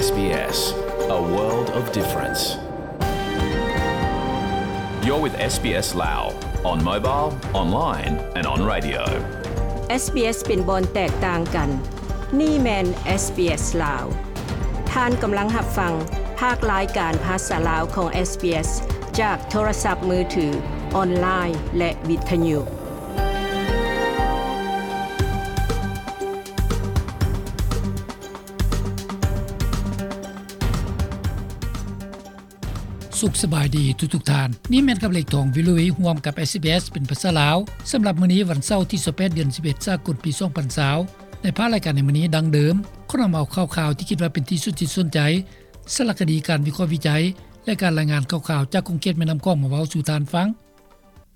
SBS, a world of difference. You're with SBS Lao on mobile, online and on radio. ເອສບີເອສ ເປັນບ່ອນແຕກຕ່າງກັນ. ນີ້ແມ່ນ ເອສບີເອສ ລາວ. ທ່ານກຳລັງຮັບຟັງພາກລາຍການພາສາລາວຂອງ ເອສບີເອສ ຈາກໂທລະສັບມືຖື, ອອນລາຍ ແລະ ວິທະຍຸ. ສຸກສະບາຍດີທຸກໆທ່ານ. ນີ້ແມ່ນກັບເລກທອງ ວິລວີ ຮ່ວມກັບ ເອສບີເອສ ເປັນພາສາລາວ. ສຳລັບມື້ນີ້ ວັນເສົາ ທີຊາວແປດ ເດືອນສິບເອັດ ສາກົນ ປີສອງພັນຊາວ. ໃນພາກລາຍການໃນມື້ນີ້ ດັ່ງເດີມ, ຂໍນຳເອົາຂ່າວໆທີ່ຄິດວ່າເປັນທີ່ສຸດທີ່ສົນໃຈ, ສາລະຄະດີ, ການວິເຄາະວິໄຈ ແລະ ການລາຍງານຂ່າວໆຈາກຂົງເຂດແມ່ນ້ຳຂອງມາເວົ້າສູ່ທ່ານຟັງ.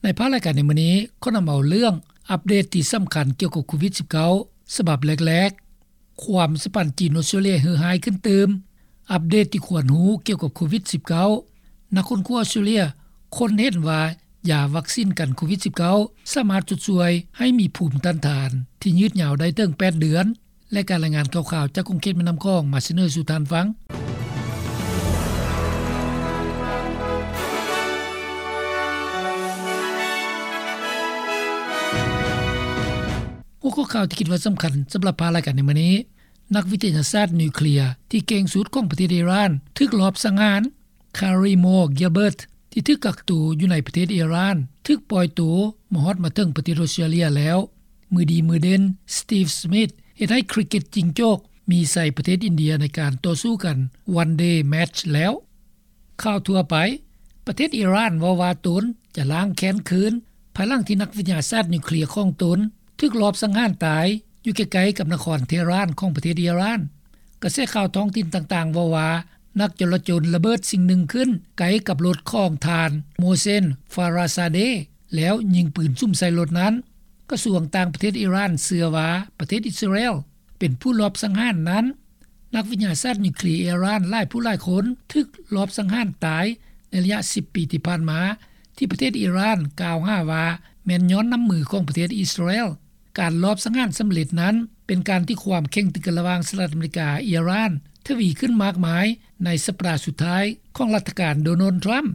ໃນພາກລາຍການໃນມື້ນີ້ ຂໍນຳເອົາເລື່ອງອັບເດດທີ່ສຳຄັນກ່ຽວກັບໂຄວິດສິບເກົ້າ ສະບັບແລກໆ, ຄວາມສຳພັນຈີນ-ອອສເຕຣເລຍເຫື່ອຮ້າຍຂຶ້ນຕື່ມ, ອັບເດດທີ່ຄວນຮູ້ກ່ຽວກັບໂຄວິດສິບເກົ້າ, ນັກຄົ້ນຄວ້າອອສເຕຣເລຍຄົ້ນເຫັນວ່າຢາວັກຊິນກັນໂຄວິດສິບເກົ້າ ສາມາດຊົດຊ່ວຍໃຫ້ມີພູມຕ້ານທານທີ່ຍືດຍາວໄດ້ເຖິງແປດເດືອນ ແລະ ການລາຍງານຂ່າວໆຈາກຂົງເຂດແມ່ນ້ຳຂອງມາສະເໜີສູ່ທ່ານຟັງ. ຫົວຂໍ້ຂ່າວທີ່ຄິດວ່າສຳຄັນສຳລັບພາກລາຍການໃນມື້ນີ້, ນັກວິທະຍາສາດນິວເຄລຍທີ່ເກັ່ງສຸດຂອງປະເທດອີຣານຖືກລອບສັງຫານ. ຄາຣີ ມໍ ກິລເບີດ ທີ່ຖືກກັກໂຕຢູ່ໃນປະເທດອີຣານ ຖືກປ່ອຍໂຕມາຮອດມາເຖິງປະເທດອອສເຕຣເລຍແລ້ວ. ມືດີມືເດັ່ນ ສະຕີບ ສະມິດ ເຮັດໃຫ້ຄຣິກເກັດຈິງໂຈກມີໄຊປະເທດອິນເດຍໃນການຕໍ່ສູ້ກັນ ວັນເດແມັດແລ້ວ. ຂ່າວທົ່ວໄປ, ປະເທດອີຣານເວົ້າວ່າຕົນຈະລ້າງແຄ້ນຄືນ ພາຍຫຼັງທີ່ນັກວິທະຍາສາດນິວເຄລຍຂອງຕົນຖືກລອບສັງຫານຕາຍຢູ່ໃກ້ໆກັບນະຄອນເທຮານຂອງປະເທດອີຣານ. ກະແສຂ່າວທ້ອງຖິ່ນຕ່າງໆເວົ້າວ່າ ນັກຈໍລະຈົນລະເບີດສິ່ງໜຶ່ງຂຶ້ນໃກ້ກັບລົດຂອງທ່ານ ໂມເຊນ ຟາຣາຊາເດ ແລ້ວຍິງປືນສຸມໃສ່ລົດນັ້ນ. ກະຊວງຕ່າງປະເທດອີຣານເຊື່ອວ່າປະເທດອິດສະຣາແອລເປັນຜູ້ລອບສັງຫານນັ້ນ. ນັກວິທະຍາສາດນິວເຄລຍອີຣານຫຼາຍຜູ້ຫຼາຍຄົນຖືກລອບສັງຫານຕາຍໃນໄລຍະສິບປີທີ່ຜ່ານມາ ທີ່ປະເທດອີຣານກ່າວຫາວ່າແມ່ນຍ້ອນນ້ຳມືຂອງປະເທດອິດສະຣາແອລ. ການລອບສັງຫານສຳເລັດນັ້ນ ເປັນການທີ່ຄວາມເຄັ່ງຕຶງກັນລະຫວ່າງສະຫະລັດອາເມລິກາ-ອີຣານທະວີຂຶ້ນມາກມາຍໃນສັບປະດາສຸດທ້າຍຂອງລັດຖະການໂດນັລ ທຣຳ.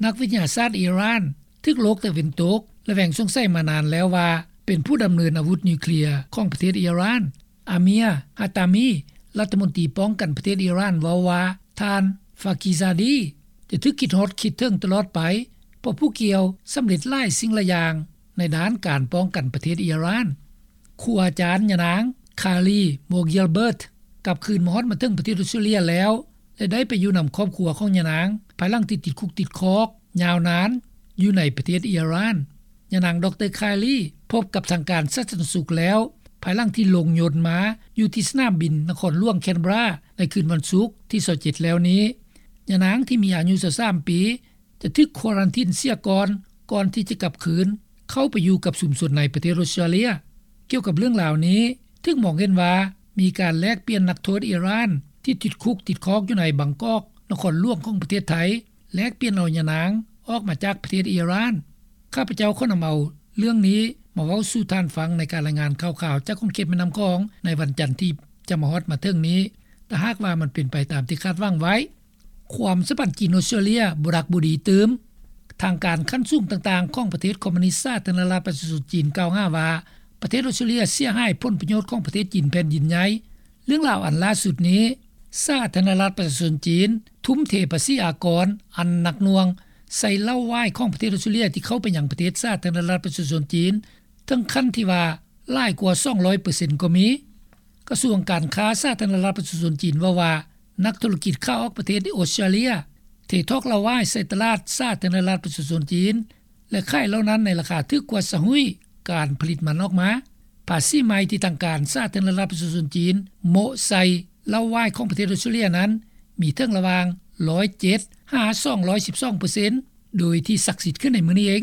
ນັກວິທະຍາສາດອີຣານຖືກໂລກຕາເວັນຕົກ ແລະ ແຫວງສົງໄສມານານແລ້ວວ່າເປັນຜູ້ດຳເນີນອາວຸດນິວເຄລຍຂອງປະເທດອີຣານ. ອາເມຍ ຮາຕາມີ ລັດຖະມົນຕີປ້ອງກັນປະເທດອີຣານເວົ້າວ່າ ທ່ານ ຟາກີຊາດີ ຈະຖືກຄິດຮອດຄິດເຖິງຕະຫຼອດໄປ ເພາະຜູ້ກ່ຽວສຳເລັດຫຼາຍສິ່ງຫຼາຍຢ່າງໃນດ້ານການປ້ອງກັນປະເທດອີຣານ. ຄູອາຈານຍານາງ ຄາລີ ໂມກິລເບີດ ກັບຄືນມາຮອດມາເຖິງປະເທດອອສເຕຣເລຍແລ້ວ ແລະ ໄດ້ໄປຢູ່ນຳຄອບຄົວຂອງຍານາງ ພາຍຫຼັງທີ່ຕິດຄຸກຕິດຄອກຍາວນານຢູ່ໃນປະເທດອີຣານ. ຍານາງ ດອກເຕີ ຄາລີ ພົບກັບທາງການສາທາລະນະສຸກແລ້ວ ພາຍຫຼັງທີ່ລົງຍົນມາຢູ່ທີ່ສະໜາມບິນນະຄອນຫຼວງແຄນເບຣາໃນຄືນວັນສຸກທີຊາວເຈັດແລ້ວນີ້. ຍານາງທີ່ມີອາຍຸຊາວສາມປີ ຈະຖືກຄວາຣັນທີນເສຍກ່ອນ ກ່ອນທີ່ຈະກັບຄືນເຂົ້າໄປຢູ່ກັບຊຸມຊົນໃນປະເທດອອສເຕຣເລຍ. ກ່ຽວກັບເລື່ອງລາວນີ້ ຖືກມອງເຫັນວ່າມີການແລກປ່ຽນນັກໂທດອີຣານທີ່ຕິດຄຸກຕິດຄອກຢູ່ໃນບາງກອກ ນະຄອນຫຼວງຂອງປະເທດໄທ ແລກປ່ຽນເອົາຍານາງອອກມາຈາກປະເທດອີຣານ. ຂ້າພະເຈົ້າຂໍນຳເອົາເລື່ອງນີ້ມາເວົ້າສູ່ທ່ານຟັງໃນການລາຍງານຂ່າວໆຈາກຂົງເຂດແມ່ນ້ຳຂອງໃນວັນຈັນທີ່ຈະມາຮອດມາເຖິງນີ້ ຖ້າຫາກວ່າມັນເປັນໄປຕາມທີ່ຄາດຫວັງໄວ້. ຄວາມສຳພັນຈີນ-ອອສເຕຣເລຍບໍ່ດັກບໍ່ດີຕື່ມ. ທາງການຂັ້ນສູງຕ່າງໆຂອງປະເທດຄອມມູນິດສາທາລະນະລັດປະຊາຊົນຈີນກ່າວຫາວ່າ ປະເທດອອສເຕຣເລຍເສຍຫາຍຜົນປະໂຫຍດຂອງປະເທດຈີນແຜ່ນດິນໃຫຍ່. ເລື່ອງລາວອັນລ່າສຸດນີ້ ສາທາລະນະລັດປະຊາຊົນຈີນທຸ່ມເທພາສີອາກອນອັນໜັກໜ່ວງໃສ່ເຫຼົ້າຫວາຍຂອງປະເທດອອສເຕຣເລຍທີ່ເຂົ້າໄປຍັງປະເທດສາທາລະນະລັດປະຊາຊົນຈີນ ເຖິງຂັ້ນທີ່ວ່າຫຼາຍກວ່າສອງຮ້ອຍເປີເຊັນກໍມີ. ກະຊວງການຄ້າສາທາລະນະລັດປະຊາຊົນຈີນເວົ້າວ່າ ນັກທຸລະກິດຂາອອກປະເທດອອສເຕຣເລຍເທຖອກເຫຼົ້າຫວາຍໃສ່ຕະຫຼາດສາທາລະນະລັດປະຊາຊົນຈີນ ແລະ ຂາຍເຫຼົ້ານັ້ນໃນລາຄາຖືກກວ່າຊາງຮຸ້ຍການຜະລິດມັນອອກມາ. ພາສີໃໝ່ທີ່ທາງການສາທາລະນະລັດປະຊາຊົນຈີນໂມະໃສ່ເຫຼົ້າຫວາຍຂອງປະເທດອອສເຕຣເລຍນັ້ນ ມີເຖິງລະຫວ່າງຮ້ອຍເຈັດຫາສອງຮ້ອຍສິບສອງເປີເຊັນ ໂດຍທີ່ສັກສິດຂຶ້ນໃນມື້ນີ້ເອງ.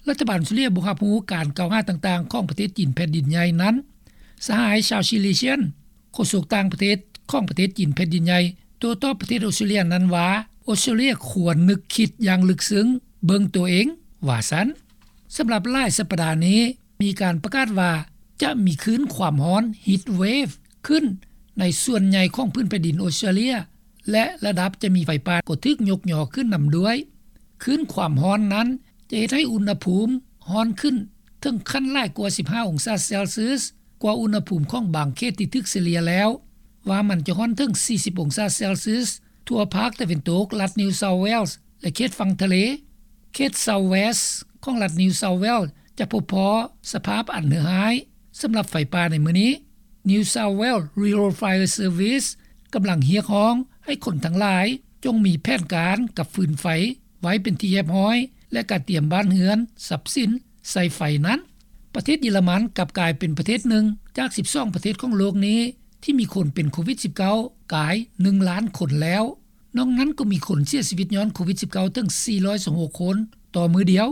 ລັດຖະບານອອສເຕຣເລຍບໍ່ຮັບຮູ້ການກ່າວຫາຕ່າງໆຂອງປະເທດຈີນແຜ່ນດິນໃຫຍ່ນັ້ນ. ສະຫາຍ ຊາວ ຊີລີຊຽນ ໂຄສົກຕ່າງປະເທດຂອງປະເທດຈີນແຜ່ນດິນໃຫຍ່ ໂຕ້ຕອບປະເທດອອສເຕຣເລຍນັ້ນວ່າ ອອສເຕຣເລຍຄວນນຶກຄິດຢ່າງເລິກເຊິ່ງເບິ່ງໂຕເອງ ວ່າຊັ້ນ. ສຳລັບຫຼາຍສັບປະດານີ້ ມີການປະກາດວ່າຈະມີຄື້ນຄວາມຮ້ອນ heat wave ຂຶ້ນໃນສ່ວນໃຫຍ່ຂອງພື້ນແຜ່ນດິນອອສເຕຣເລຍ ແລະ ລະດັບຈະມີໄຟປ່າກໍຖືກຍົກຍໍຂຶ້ນນຳດ້ວຍ. ຄື້ນຄວາມຮ້ອນນັ້ນຈະເຮັດໃຫ້ອຸນຫະພູມຮ້ອນຂຶ້ນເຖິງຂັ້ນຫຼາຍກວ່າສິບຫ້າອົງສາເຊລຊຽສ ກວ່າອຸນຫະພູມຂອງບາງເຂດທີ່ຖືກສະເລ່ຍແລ້ວ, ວ່າມັນຈະຮ້ອນເຖິງສີ່ສິບອົງສາເຊລຊຽສທົ່ວພາກຕາເວັນຕົກລັດ New South Wales ແລະ ເຂດຝັ່ງທະເລ. ເຂດ South West ຂອງລັດ New South Wales ຈະພົບພໍ້ສະພາບອັນເຫືອຮ້າຍສຳລັບໄຟປ່າໃນມື້ນີ້. New South Wales Rural Fire Service ກຳລັງຮຽກຮ້ອງໃຫ້ຄົນທັງຫຼາຍຈົ່ງມີແຜນການກັບຟືນໄຟໄວ້ເປັນທີ່ຮຽບຮ້ອຍ ແລະ ກະຕຽມບ້ານເຮືອນ, ຊັບສິນໃສ່ໄຟນັ້ນ. ປະເທດເຢຍລະມັນກັບກາຍເປັນປະເທດໜຶ່ງຈາກສິບສອງປະເທດຂອງໂລກນີ້ທີ່ມີຄົນເປັນໂຄວິດສິບເກົ້າກາຍໜຶ່ງລ້ານຄົນແລ້ວ. ນອກນັ້ນກໍມີຄົນເສຍຊີວິດຍ້ອນໂຄວິດສິບເກົ້າເຖິງສີ່ຮ້ອຍຊາວຫົກຄົນຕໍ່ມື້ດຽວ.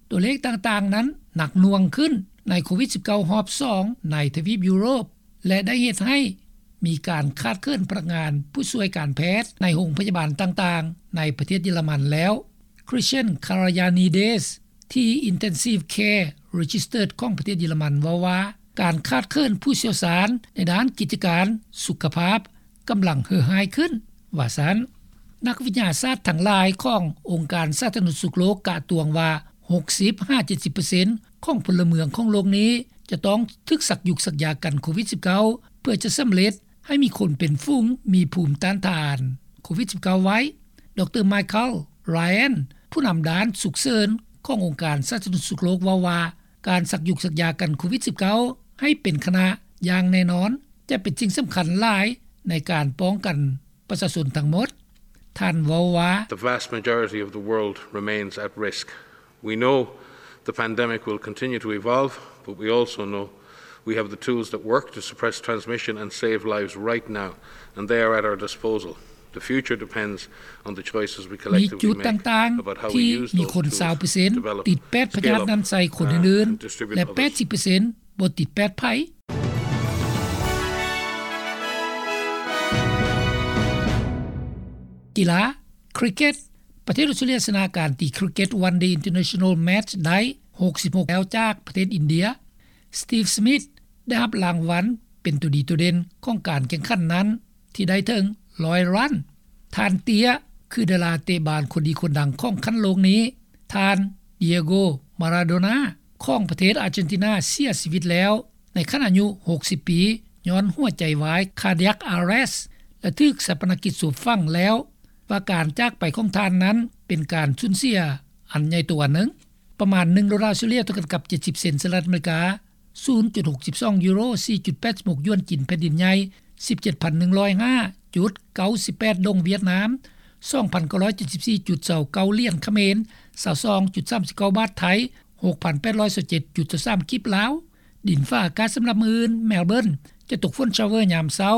ຕົວເລກຕ່າງໆນັ້ນໜັກໜ່ວງຂຶ້ນໃນໂຄວິດສິບເກົ້າຮອບສອງໃນທະວີບຢູໂຣບ ແລະ ໄດ້ເຮັດໃຫ້ມີການຂາດເຂີນພະນັກງານຜູ້ຊ່ວຍການແພດໃນໂຮງພະຍາບານຕ່າງໆໃນປະເທດເຢຍລະມັນແລ້ວ. Christian Kyriakides ທີ່ Intensive Care Registers ຂອງປະເທດເຢຍລະມັນເວົ້າວ່າ ການຂາດເຂີນຜູ້ຊ່ຽວຊານໃນດ້ານກິດຈະການສຸຂະພາບກຳລັງເຫືອຮ້າຍຂຶ້ນ ວ່າຊັ້ນ. ນັກວິທະຍາສາດທັງຫຼາຍຂອງອົງການສາທາລະນະສຸກໂລກກະຕວງວ່າ ຫົກສິບຫາເຈັດສິບເປີເຊັນຂອງພົນລະເມືອງຂອງໂລກນີ້ຈະຕ້ອງຖືກສັກຍຸກສັກຢາກັນໂຄວິດສິບເກົ້າ ເພື່ອຈະສຳເລັດໃຫ້ມີຄົນເປັນຝູງມີພູມຕ້ານທານໂຄວິດສິບເກົ້າໄວ້. ດຣ Michael Ryan ຜູ້ນຳດ້ານສຸກເສີນຂອງອົງການສາທາລະນະສຸກໂລກເວົ້າວ່າ ການສັກຍຸກສັກຢາກັນໂຄວິດສິບເກົ້າໃຫ້ເປັນຂະນະຢ່າງແນ່ນອນ ຈະເປັນສິ່ງສຳຄັນຫຼາຍໃນການປ້ອງກັນປະຊາຊົນທັງໝົດ. ທ່ານເວົ້າວ່າ The vast majority of the world remains at risk. We know the pandemic will continue to evolve, but we also know we have the tools that work to suppress transmission and save lives right now, and they are at our disposal. The future depends on the choices we ມີ collectively ຈຸດ make ຕ່າງໆ about how we ທີ່ use ມີ those ຄົນ tools ຊາວເປີເຊັນ to develop, ຕິດແປດພະຍາດ scale up, ນັ້ນໃສ່ຄົນ uh, ອື່ນ and ແລະ distribute ແປດສິບເປີເຊັນ others. ບໍ່ຕິດແປດໃຜ. ກິລາ ຄຣິກເກັດ ປະເທດອົດສະຕຣາເລຍຊະນະການຕີຄຣິກເກັດ One Day International Match ໄດ້ ຫົກສິບຫົກ ແລ້ວຈາກປະເທດອິນເດຍ. Steve Smith ໄດ້ຮັບລາງວັນເປັນຕົວດີໂດດເດັ່ນຂອງການແຂ່ງຂັນນັ້ນ ທີ່ໄດ້ເຖິງ ຮ້ອຍ ຣັນ. ທ່ານເຕ້ຍ ຄືດາລາເຕະບານຄົນດີຄົນດັງຂອງຂັ້ນໂລກນີ້. ທ່ານ Diego Maradona ຂອງປະເທດອາເຈນຕິນາເສຍຊີວິດແລ້ວ ໃນຂັ້ນອາຍຸ ຫົກສິບ ປີ ຍ້ອນຫົວໃຈວາຍ cardiac arrest ແລະ ຖືກຊາປະນະກິດສົບຝັງແລ້ວ ວ່າການຈາກໄປຂອງທ່ານນັ້ນເປັນການສູນເສຍອັນໃຫຍ່ໂຕອັນໜຶ່ງ. ປະມານ ໜຶ່ງໂດລາອົດສະຕຣາເລຍ ເທົ່າກັນກັບ ເຈັດສິບ ເຊັນສະຫະລັດອາເມລິກາ, ສູນຈຸດຫົກສິບສອງຢູໂຣ, ສີ່ຈຸດແປດສິບຫົກຢວນຈີນແຜ່ນດິນໃຫຍ່, ສິບເຈັດພັນໜຶ່ງຮ້ອຍຫ້າຈຸດເກົ້າສິບແປດດົງຫວຽດນາມ, ສອງພັນເກົ້າຮ້ອຍເຈັດສິບສີ່ຈຸດຊາວເກົ້າຫຼຽນຂະເໝນ, ຊາວສອງຈຸດສາມສິບເກົ້າບາດໄທ, ຫົກພັນແປດຮ້ອຍຊາວເຈັດຈຸດຊາວສາມກີບລາວ. ດິນຟ້າອາກາດສຳລັບມື້ອື່ນ, ແມລເບີນຈະຕົກຝົນຊາວເວີຍາມເຊົ້າ,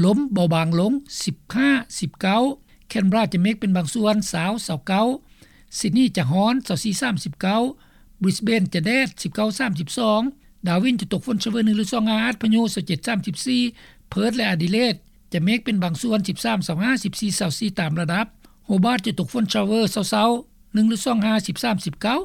ລົມເບົາບາງລົງ ສິບຫ້າ ສິບເກົ້າ, ແຄນເບຣາຈະເມກເປັນບາງສ່ວນ ຊາວ ຊາວເກົ້າ, ຊິດນີຈະຮ້ອນ ຊາວສີ່ ສາມສິບເກົ້າ, ບຣິສເບນຈະແດດ ສິບເກົ້າ ສາມສິບສອງ, ດາວິນຈະຕົກຝົນຊາວເວີໜຶ່ງ ຫຼື ສອງ ອາດພະຍຸ ຊາວເຈັດ ສາມສິບສີ່, ເພີດ ແລະ ອາດີເລດຈະເມກເປັນບາງສ່ວນ ສິບສາມ ຊາວຫ້າ, ສິບສີ່ ຊາວສີ່ ຕາມລະດັບ, ໂຮບາດຈະຕົກຝົນຊາວເວີເຊົ້າໆ ໜຶ່ງ ຫຼື ສອງ ອາດ ສິບສາມ ສິບເກົ້າ.